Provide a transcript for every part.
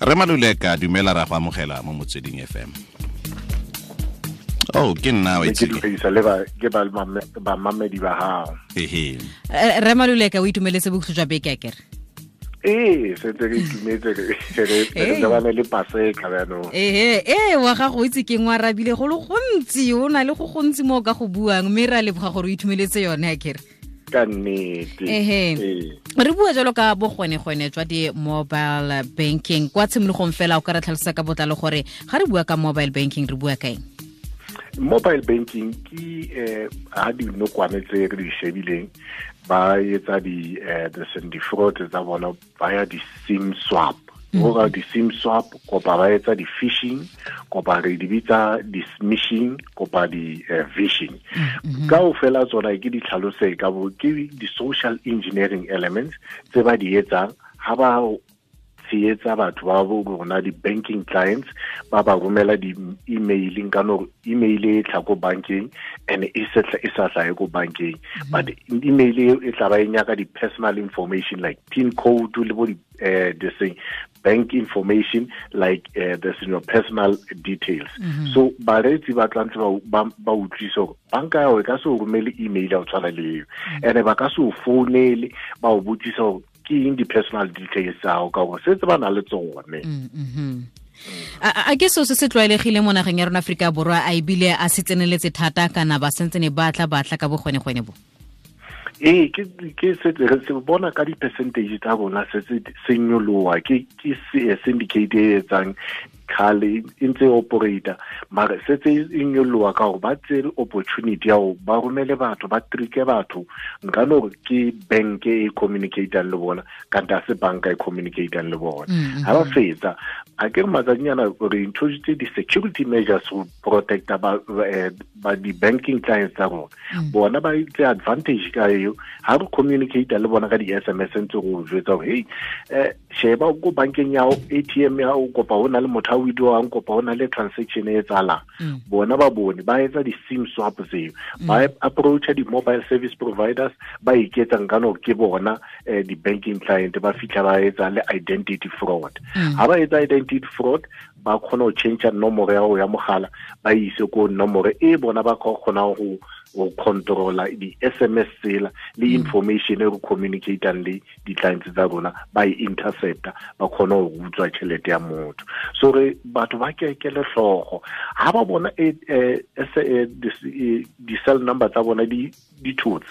Re Maluleka, dumela, ra go amogela mo Motsweding FM. Oh, ke nna wa itse. Ke le ba ke ba ba mamedi ba hao. Ehe. Re Maluleka, o itumeletse bokhutlo jwa beke akere? Ee, setse re itumetse, re lebane le Paseka jaanong. Ehe, ee, wa gago o itse ke ngwe arabile go le gontsi, o na le go gontsi mo o ka go buang, mme re a leboga gore o itumeletse yone akere. Ka nnete. Ehe. Re bua jalo ka bogwenegwene jwa di-mobile banking. Kwa tshimologong fela, o ka re tlhalosa ka botlalo gore ga re bua ka mobile banking re bua ka eng? Mobile banking ke ha dinokwane tse re di shebileng ba etsa di di fraud tsa bona, ba ya di-SIM swap. Go ka di-SIM swap, kopa ba etsa di-phishing, kopa re di bitsa di-smishing, kopa di-vishing. Ka o fela tsona ke di tlhalose ka bo ke di-social engineering elements tse ba di etsang ha ba tsheetsa batho ba bo rona di-banking clients, ba ba romela di-emailing ka no email e tla ko bankeng and e sa hlahe ko bankeng, but email e tla ba e nyaka di-personal information like PIN code le bo this thing, bank information like this in your personal details. So bareetsi ba tlantse ba utlwise gore banka ya e ka se o romele email ya o tshwana le eo, and ba ka se o founele ba o botsisa gore ke eng di-personal details tsa gago, ka gore setse ba na le tsone. A ke seo se se tlwaelegile mo nageng ya rona Aforika Borwa, a ebile a se tseneletse thata kana ba sentsene ba tla ka bogwenegwene bo? Ee, ke setse re se bona ka di-percentage tsa rona se se nyoloha. Ke syndicate e etsang khale e ntse operator, mare setse e nyoloha ka gore ba tsere opportunity ya go ba romele batho, ba tricke batho nka no gore ke bank e communicatang le bona, kante a se banka e communicatang le bona. Ha ba fetsa, a ke re matsatsinyana re introduce di-security measures go protecta ba di-banking clients tsa rona. Bona ba itse advantage ka eo, ha re communicate le bona ka di-SMS ntse go jwetsa gore hey, sheba ko bankeng ya ATM ya o, kopa ho na le motho a withdrawang, kopa ho na le transaction e etsahalang. Bona ba bone ba etsa di-SIM swap tseo, ba approacha di-mobile service providers, ba iketsang ka no ke bona di-banking client, ba fitlha ba etsa le identity fraud. Ha ba etsa identity fraud, ba kgona ho change nomoro ya ya mogala, ba ise ko nomoro e bona ba kgona go controla di-SMS tsela le information e re communicatang le di-clients tsa rona, ba e intercepta, ba kgona go utswa tšhelete ya motho. So re batho ba kekele hlooho ha ba bona di-cell number tsa bona di thotse,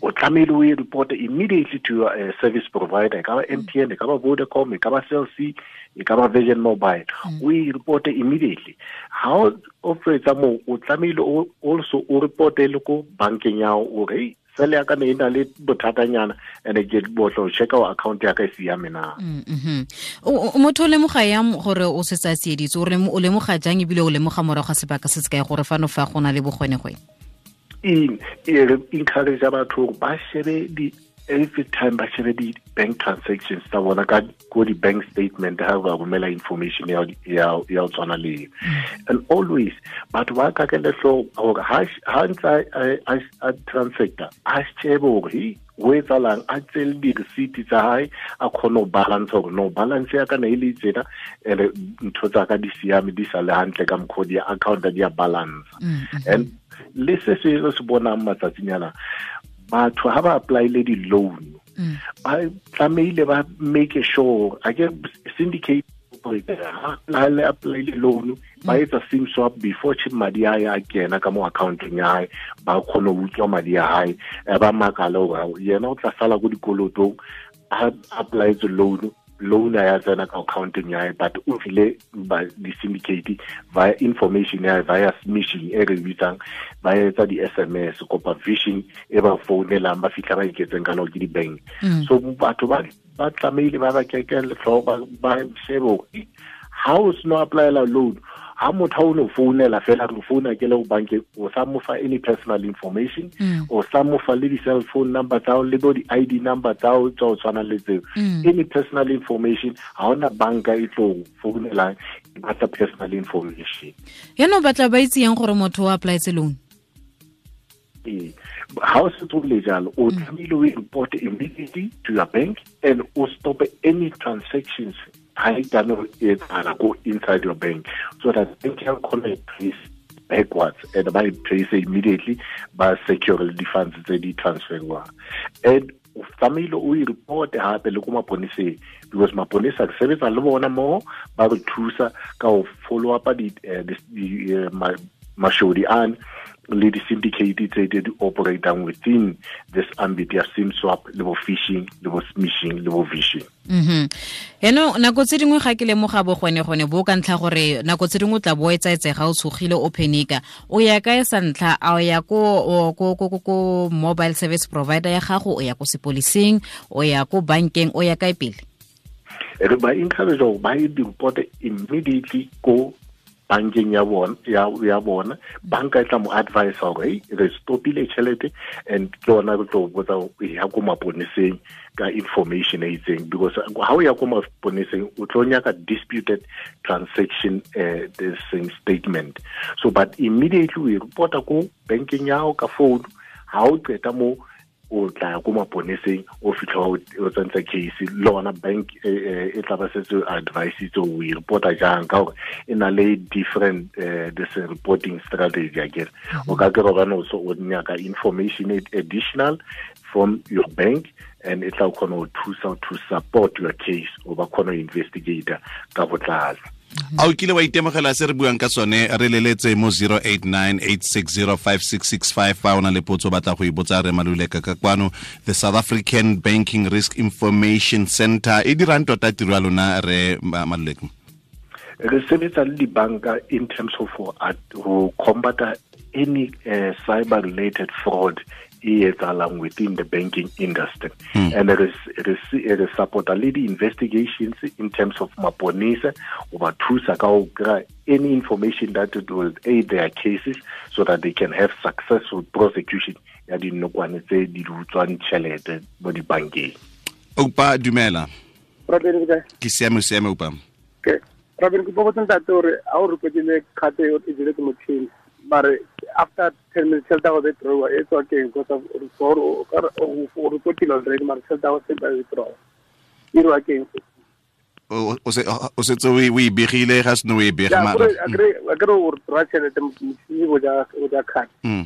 o tlamehile o e report immediately to your service provider, e ka ba MTN, e ka ba Vodacom, e ka ba Cell C, e ka ba Virgin Mobile, o e report immediately. Ha o fetsa moo, o tlamehile also o reporte le ko bankeng ya hao hore sele ya ka ne e na le bothatanyana, and ke botlo checka o account ya ka e siame na. Motho o lemoga yang gore o setse a tsieditswe? O lemoga jang ebile o lemoga morago ga sebaka se se kae gore fano fa go na le bogwenegwene? E re encourage batho gore ba shebe di every time, ba shebe di-bank transactions tsa bona ka ko di-bank statement ha ba romela information ya ya tshwana le. And always batho ba kakele hlooho hore ha ntse a transacta, a shebe hore ho etsahalang, a tsele di-receipt tsa hae, a kgone ho balance hore no balance ya ka ne e le tsena, ene ntho tsa ka di siame, di sa le hantle ka mokgwa di account di ya balance. And le se se re se bonang matsatsinyana, batho ha ba applyile di-loan, ba tlamehile ba make sure a ke syndicate ha le applyile loan, ba etsa SIM swap before chip madi a ya kena ka mo accounteng ya hae, ba kgone ho utswa madi a hae, ba makala hore yena o tla sala ko dikolotong a applyetse loan ya tsena ka accounteng ya hae, but o file ba di-syndicate via information ya via smishing e re bitsang, ba etsa di-SMS kopa phishing e ba founelang, ba fitlha ba iketseng ka no ke di-bank. So batho ba tlamehile ba ba keke letlho, ba shebe hore ha o seno applyela loan, ha motho o no founela fela re founa ke le go bankeng, o sa mo fa any personal information, o sa mo fa le di-cell phone number tsa le bo di-ID number tsa o tsa o tshwana le tseo, any personal information. Ha ona banka e tlo founelang e batla personal information. Yaanong batla ba itse yang gore motho o applyetse loan? Ee, ha o setse o le jalo, o tlamehile o report immediately to your bank and o stop any transactions. Ha e tlameha ho etsahala ko inside your bank, so that bank ya kgona trace backwards and by trace immediately ba secure the funds tse di transferwang. And o tlamehile o e report hape le ko maponeseng, because maponesa re sebetsa le bona mo ba re thusa ka ho follow up di mashodi an le di-syndicate tse di operatang within this ambit ya SIM swap le bo phishing le bo smishing le bo vishing. Eno nako tse dingwe ga ke lemoga bo gone bo ka ntlha gore nako tse dingwe tla bo etsaetsega o tshogile o phenika, o ya kae sa ntlha? A o ya ko ko mobile service provider ya gago, o ya ko sepolising, o ya ko bankeng, o ya kae pele? Re ba encourage gore ba e report immediately ko bankeng ya bona. Banka e tla mo advise gore re stopile tšhelete, and ke yona re tlo botsa ya ko maponeseng ka information e itseng, because ha o ya ko maponeseng o tlo nyaka disputed transaction this statement. So but immediately we reporta ko bankeng ya hao ka phone, ha o qeta mo o tla ko maponeseng, o fitlha o tsentsa case le ona bank e tla ba setse advice tse o e reporta jang, ka gore e na le different this reporting strategy akere. O ka kry bana o nyaka information additional from your bank, and e tla kgona go thusa to support your case, o ba kgona go investigate ka botlalo. A o kile wa itemogela se re buang ka sone? Re leletse mo 0898605665 fa o na le potso batla go e botsa re Maluleka ka kwano. The South African Banking Risk Information Center e dirang tota tiro ya lona re Maluleka? Re sebetsa le dibanka in terms of ho combat any cyber related fraud e etsahalang within the banking industry. And re support le di-investigations in terms of maponesa, o ba thusa ka ho kry any information that it will aid their cases so that they can have successful prosecution ya dinokwane tse di utswang tjhelete mo dibankeng. Oupa, dumela. Ke siame, siame Oupa. Okay. Robin, ke botsa ntate hore ha o repotile card e jele ke motjhini, mare after 10 minutes tšhelete ya go withdraw e tswa keng? Because o repotile already, mare tšhelete ya go se ba withdraw e irwa keng? O setse o e begile ga seno o e bega mara akere o withdraw tšhelete motšhini o ja card, o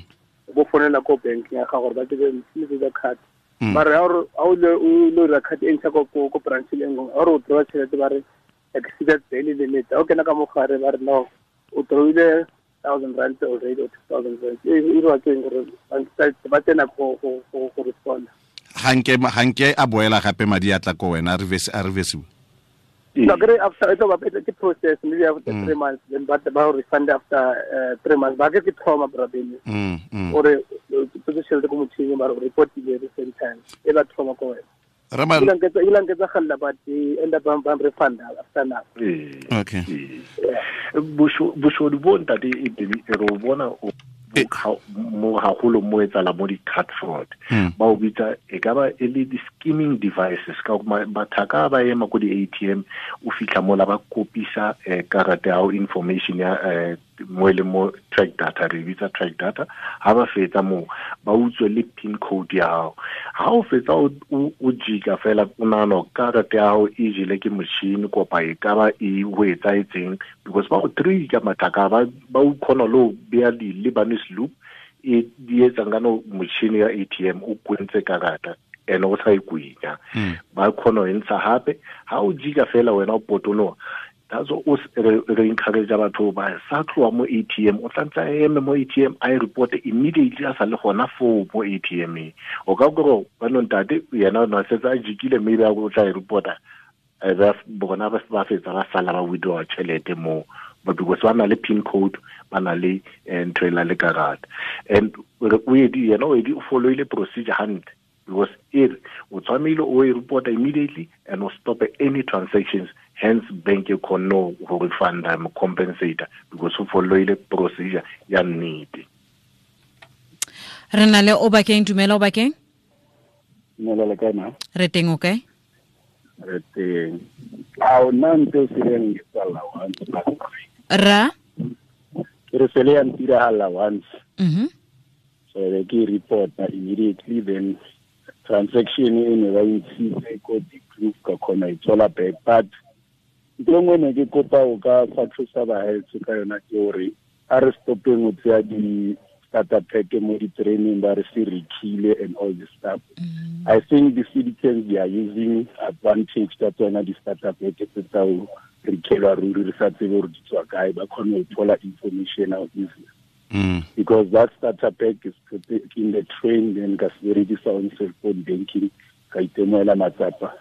bo founela ko bank ya gago gore ba tsebe motšhini o ja card, mare ha o lo dira card e ntšha ko branch e nngwe, ha o withdraw tšhelete ba re exceeded daily limit. O kena ka mogare ba re no, o drawile 1,000 rand already or 2,000 rand. E irwa keng gore ba tsena go respond? Hanke a boela gape madi a tla ko wena a reversiwe. No, after it's about the process maybe after 3 months, then but ba refund after 3 months. Ba ke trauma brabeni. Ore position le ko motšhini ba report the same time. E ba trauma ko wena. Ramal but they end up refund after now. Okay. Boshodu bo ntate e re bona mo haholo mo etsala mo di-card fraud. Ba o bitsa e ka ba e le di-skimming devices, ka bathaka ba ema ko di-ATM, o fitlha mola ba kopisa karata ya information ya mo e leng mo track data, re bitsa track data. Ha ba fetsa moo ba utswe le pin code ya hao. Ha o fetsa o jika fela o nahana karata ya hao e jele ke motšhini kopa e ka ba e ho etsaetseng, because ba go trika mathaka ba o kgona le ho beya di-Lebanese loop e di etsang ka no motšhini ya ATM o kwentse karata and o sa e kwenya. Ba kgona ho ntsha hape ha o jika fela wena o potoloha. That's what re encourage batho ba sa tloha mo ATM, o tlantse a eme mo ATM a e report immediately a sa le gona foo mo ATM. O ka gore ba no ntate yena o na setse a jikile maybe a o tla e reporta, bona ba fetsa ba sala ba withdraw tšhelete mo, but because ba na le pin code, ba na le ntho e la le karata. And o edi yena o edi o followile procedure hantle, because o tshwanile o e report immediately and o stop any transactions. Hence bank e kgonne go refunda mo compensator because o followile procedure ya nnete. Re na le Obakeng. Dumela Obakeng. Dumela le kae ma? Re teng, o kae? Re teng. A o nna ntse o seleng tsala once. Ra? Ke re sele ya ntiragala once. So ke report immediately, then transaction e ne ba ntshitse ko di-proof ka kgona e tswela back, but Ntho nngwe ne ke kopa o ka fa thusa bahaetsho ka yona ke hore a re stopeng ho tseya di-starter pack mo di-training ba re se rekile and all this stuff. I think the citizens, they are using advantage ka tsona di-starter pack tse tsa ho rekelwa ruri re sa tsebe hore di tswa kae, ba kgone ho thola information out easily. Because that starter pack is put in the train, then ka se berekisa on cell phone banking, ka itemoela matsapa.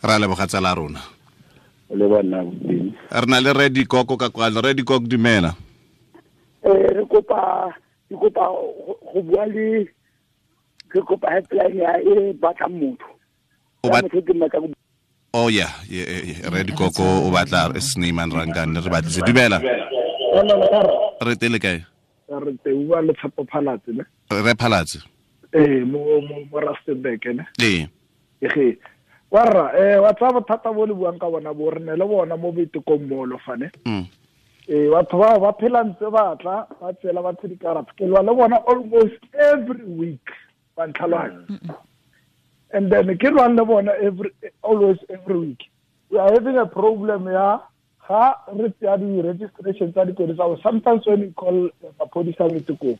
Ra leboga tsala rona. O le bona boteng. Re na le Redi Koko ka kwano. Redi Koko, dumela. Re kopa go bua le ke kopa helpline ya e batlang motho. Motho ke mmatla. Oh yeah, Redi Koko o batla Snyman Rangane re batlise. Dumela. Re tele kae? Re te bua le Tshepo Phalatse ne. Re Phalatse. Mo Rustenburg ne. Ee. Ege. Warra wa tsa bothata bo le buang ka bona bo re ne le bona mo boitekong molo fane. Batho ba ba phela ntse ba tla ba tsela batho dikarata. Ke lwa le bona almost every week ba ntlhaloganya. And then ke lwa le bona always every week. We are having a problem ya ga re tseya di-registration tsa dikoloi tsa. Sometimes when you call maphodisa boitekong,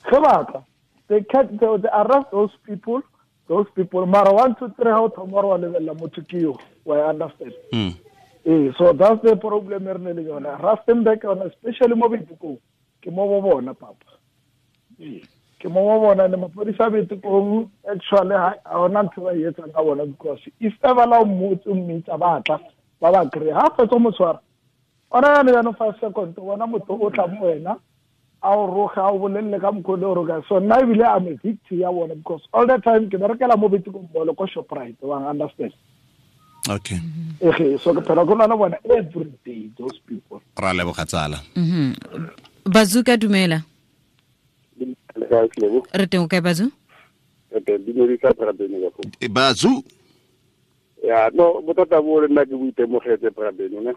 ge ba tla they arrest those people. Those people, mara 1 2 3 how tomorrow level motho ke yo, I understand. So that's the problem re ne le yona. Rustenburg yona, especially mo Boitekong, ke mo bo bona papa. Ke mo bo bona le maphodisa Boitekong actually ha ona ntho ba etsang ka bona, because if ever la motse mmitsa ba tla ba ba kry ha fetsa mo tshwara ona yana yana 5 seconds bona motho o tla mo wena a o roga a o bolelle ka mokgwa o roga. So nna ebile I'm a victim ya bona, because all the time ke berekela mo Boitekong mall ko Shoprite, wa understand. Okay. So ke phela go lwana bona every day those people. Ra leboga tsala. Bazuka, dumela. Re teng kae Bazu? Re teng dumedisa Brabeno ka go. Bazu. Ya no bothata bo le nna ke boitemogetse Brabeno ne.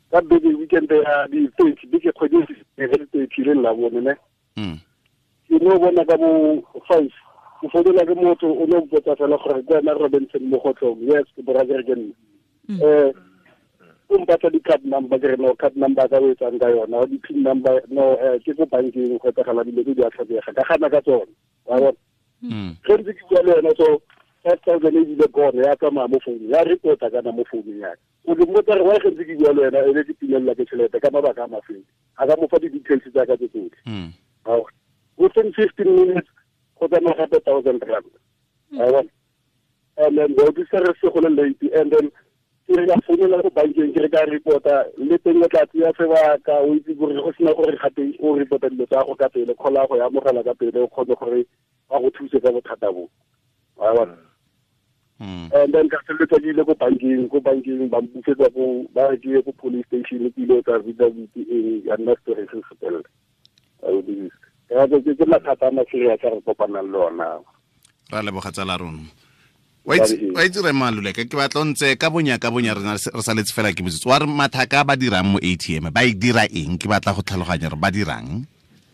Ka beke weekend ya di 30 beke kgwedi e le 30 le la bone ne. Ke no bona ka bo 5 ke founela ke motho o no mpotsa fela gore ke wena Robinson mo gotlong. Yes, ke brother ke nna. O mpatla di-card number, ke re no card number ka o etsang ka yona, di-pin number no ke ko bankeng go etsagala dilo tse di a tlhokega, ka gana ka tsone. Wa bona. Ge ntse ke bua le yena so 5,000 e bile gone ya tsamaya mo founung, ya reporta kana mo founung ya ka. O ke mmotsa re why ge ntse ke bua le wena e be ke timelela ke tšhelete ka mabaka a mafeng, a ka mo fa di-details tsa ka tse tsotlhe. Within 15 minutes go tsamaya gape 1,000 rand. Wa bona. And then go disa re se go le late, and then ke re ka founela ko bankeng ke re ka reporta le teng o tla tseya sebaka, o itse gore go sena gore gape o reporta dilo tsa go ka pele, kgola go ya amogela ka pele, o kgone gore ba go thuse ka bothata bo. Wa bona. And then ka feleletsa ke ile ko bankeng ba mpusetsa ko ba re ke ye ko police station, ke ile tsa affidavit eng ya nna story se se felela. Ke mathata a maserious a re kopanang le ona. Ra leboga tsala rona. Wa itse re Maluleka ke batla ntse ka bonya re saletse fela ke botsitse. Wa re mathaka ba dirang mo ATM ba e dira eng? Ke batla go tlhaloganya gore ba dirang.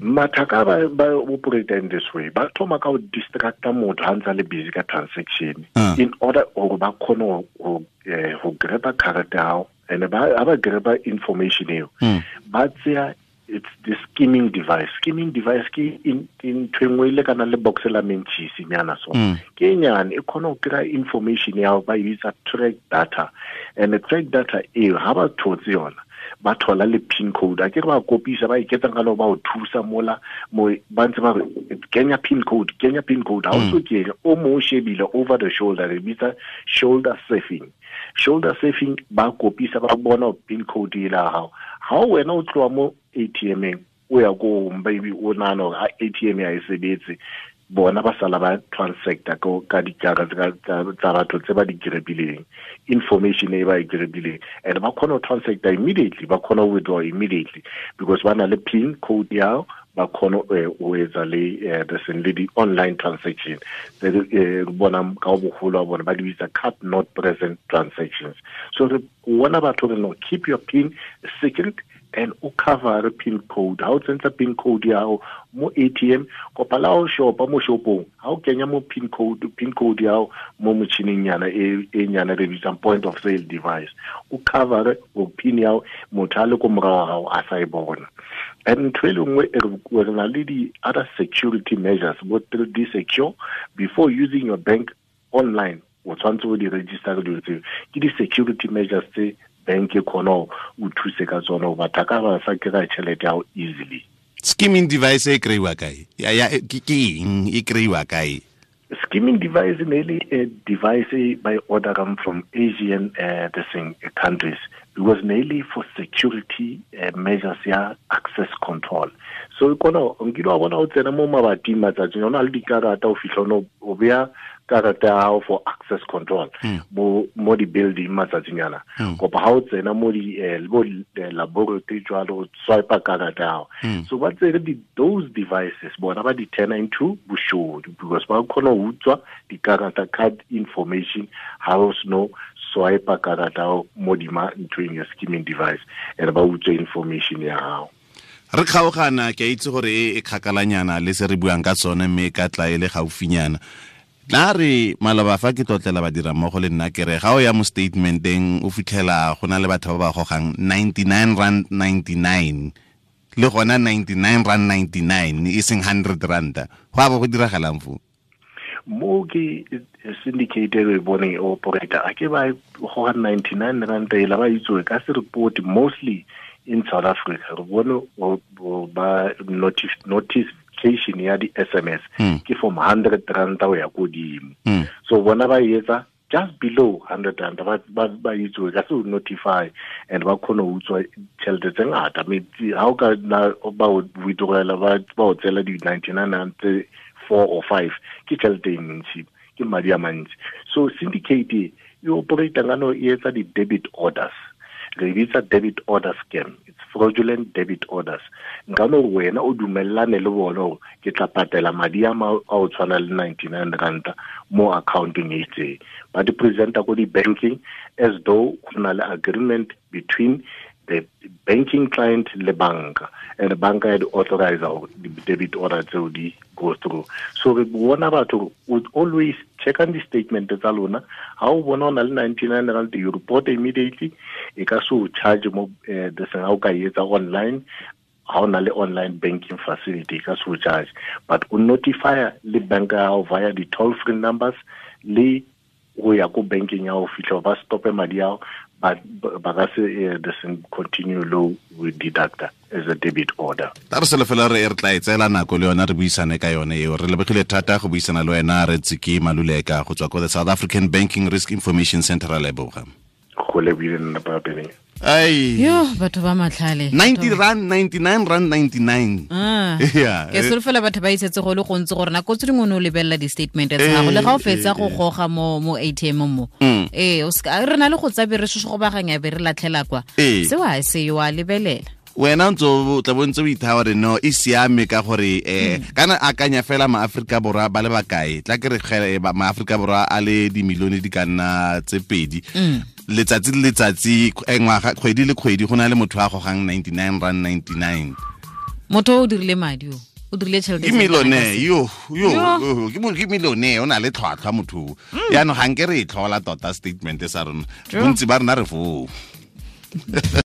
Mathaka ba operate in this way. Ba thoma ka go distracta motho ha ntse le busy ka transaction in order gore ba kgone go grab card ya hao, and ba grab information eo. Ba tseya it's the skimming device. Skimming device ke in ntho engwe ile kana le box la mentšhisi nyana so. Ke nyane e khona go kry information ya ba e bitsa track data, and the track data eo ha ba thotse yona ba thola le pin code. A ke re ba kopisa ba iketsang ka lo ba o thusa mola mo ba ntse ba re kenya pin code, kenya pin code. Ha o so ke o mo shebile over the shoulder, re bitsa shoulder surfing. Shoulder surfing ba kopisa ba bona pin code ela hao. Ha wena o tloa mo ATM-eng o ya ko baby o nahana hore ATM ya e sebetse, bona ba sala ba transacta ka dikarata tsa batho tse ba di grebileng, information e ba e grebileng, and ba kgona ho transacta immediately, ba kgona ho withdraw immediately because ba na le pin code ya ba kgona ho etsa le le di-online transaction tse bona ka boholo ba bona ba di bitsa card not present transactions. So re bona batho re no keep your pin secret, And o cover pin code. Ha o tsentsa pin code ya hao mo ATM kopa la o shopa mo shopong, ha o kenya mo pin code ya hao mo motjhining nyana e nyana re bitsang point of sale device, o cover o pin ya hao motho a le ko morao hao a sa e bona. And ntho e le nngwe re na le di other security measures bo 3D secure before using your bank online. O tshwanetse o di register dilo tseo, ke di security measures tse bank e khona o thuse ka tsona o batho ka ba sa kry tšhelete ya easily. Skimming device e kry-iwa kae? Ke eng e kry-iwa kae? Skimming device ne le a device by ordering from Asian countries, because mainly for security measures ya access control. So kona nkile wa bona o tsena mo mabating matsatsing ona le dikarata o fitlha o beya karata ya hao for access control mo di building matsatsing ana. Kopa ha o tsena mo di laboratory jwalo swipe karata ya hao. So ba tsere those devices bona ba di turn into boshodu, because ba khona ho utswa dikarata card information ha o sno swipe karata mo dima ntweng ya skimming device and ba utswa information ya hao. Re kgaogana ke a itse gore e kgakalanyana le se re buang ka tsone mme ka tla e le gaufinyana. Tla re maloba fa ke tlotlela badira mmogo le nna ke re ga o ya mo statementeng o fitlhela go na le batho ba ba gogang 99.99 le gona 99.99 e seng 100 rand. Go a bo go diragalang fo? Mo ke syndicate e boneng e operator a ke ba goga 99 rand e la ba itse ka se report mostly in South Africa. Re bone ba notification ya di SMS ke from 100 rand o ya kodimo. So bona ba etsa just below 100 rand ba itse ka se notify and ba khona ho utswa tšhelete tse ngata. Ha o ka ba withdrawela ba o tsela di 99 rand 4 or 5 ke tšhelete e ntsi, ke madi a mantsi. So syndicate e operate ngano e etsa di debit orders. Re bitsa debit order scam. It's fraudulent debit orders. Nka no wena o dumellane le bona hore ke tla patela madi a o tshwana le 99 rand mo accountong e itseng. Ba di presenta ko di banking as though go na le agreement between the banking client le banka, and the banka ya di authorize the debit order tseo di go through. So re bona batho would always check on the statement tsa lona. Ha o bona o na le 99 rand, you report immediately. E ka so charge mo the seng ha o ka etsa online, ha o na le online banking facility ka so charge, but o notify le banka ya hao via the toll free numbers le go ya ko banking ya ho fihla ba stope madi ao, but ba ka se the same continue low with deductor as a debit order. Ta re sele fela re tla e tseela nako le yona re buisane ka yone eo. Re lebogile thata go buisana le wena re Tsiki Maluleka go tswa ko the South African Banking Risk Information Center. Ra leboga. Go lebile nna pa pele. Ai. Yo batho ba matlhale. 90 rand 99 rand 99. Yeah. Ke solofela batho ba isetse go le gontsi gore nako tse dingwe o lebella di statement tsa gago le ga o fetsa go goga mo ATM mo. O ska re na le go tsabe re go baganya be re latlhela kwa. Se wa se yo a lebelela. Wena ntse o tla bontse o ithawa re no e siame ka gore kana akanya fela ma Afrika Borwa ba le bakae tla ke re ma Afrika Borwa a le di milione di ka nna tse pedi letsatsi le letsatsi ngwaga kgwedi le kgwedi go na le motho a gogang 99 rand 99. Motho o dirile madi o dirile tšhelete ke millionaire yo ke millionaire o na le tlhwatlhwa motho yaanong ga nke re e tlhola tota statement sa rona bontsi ba rona re foo.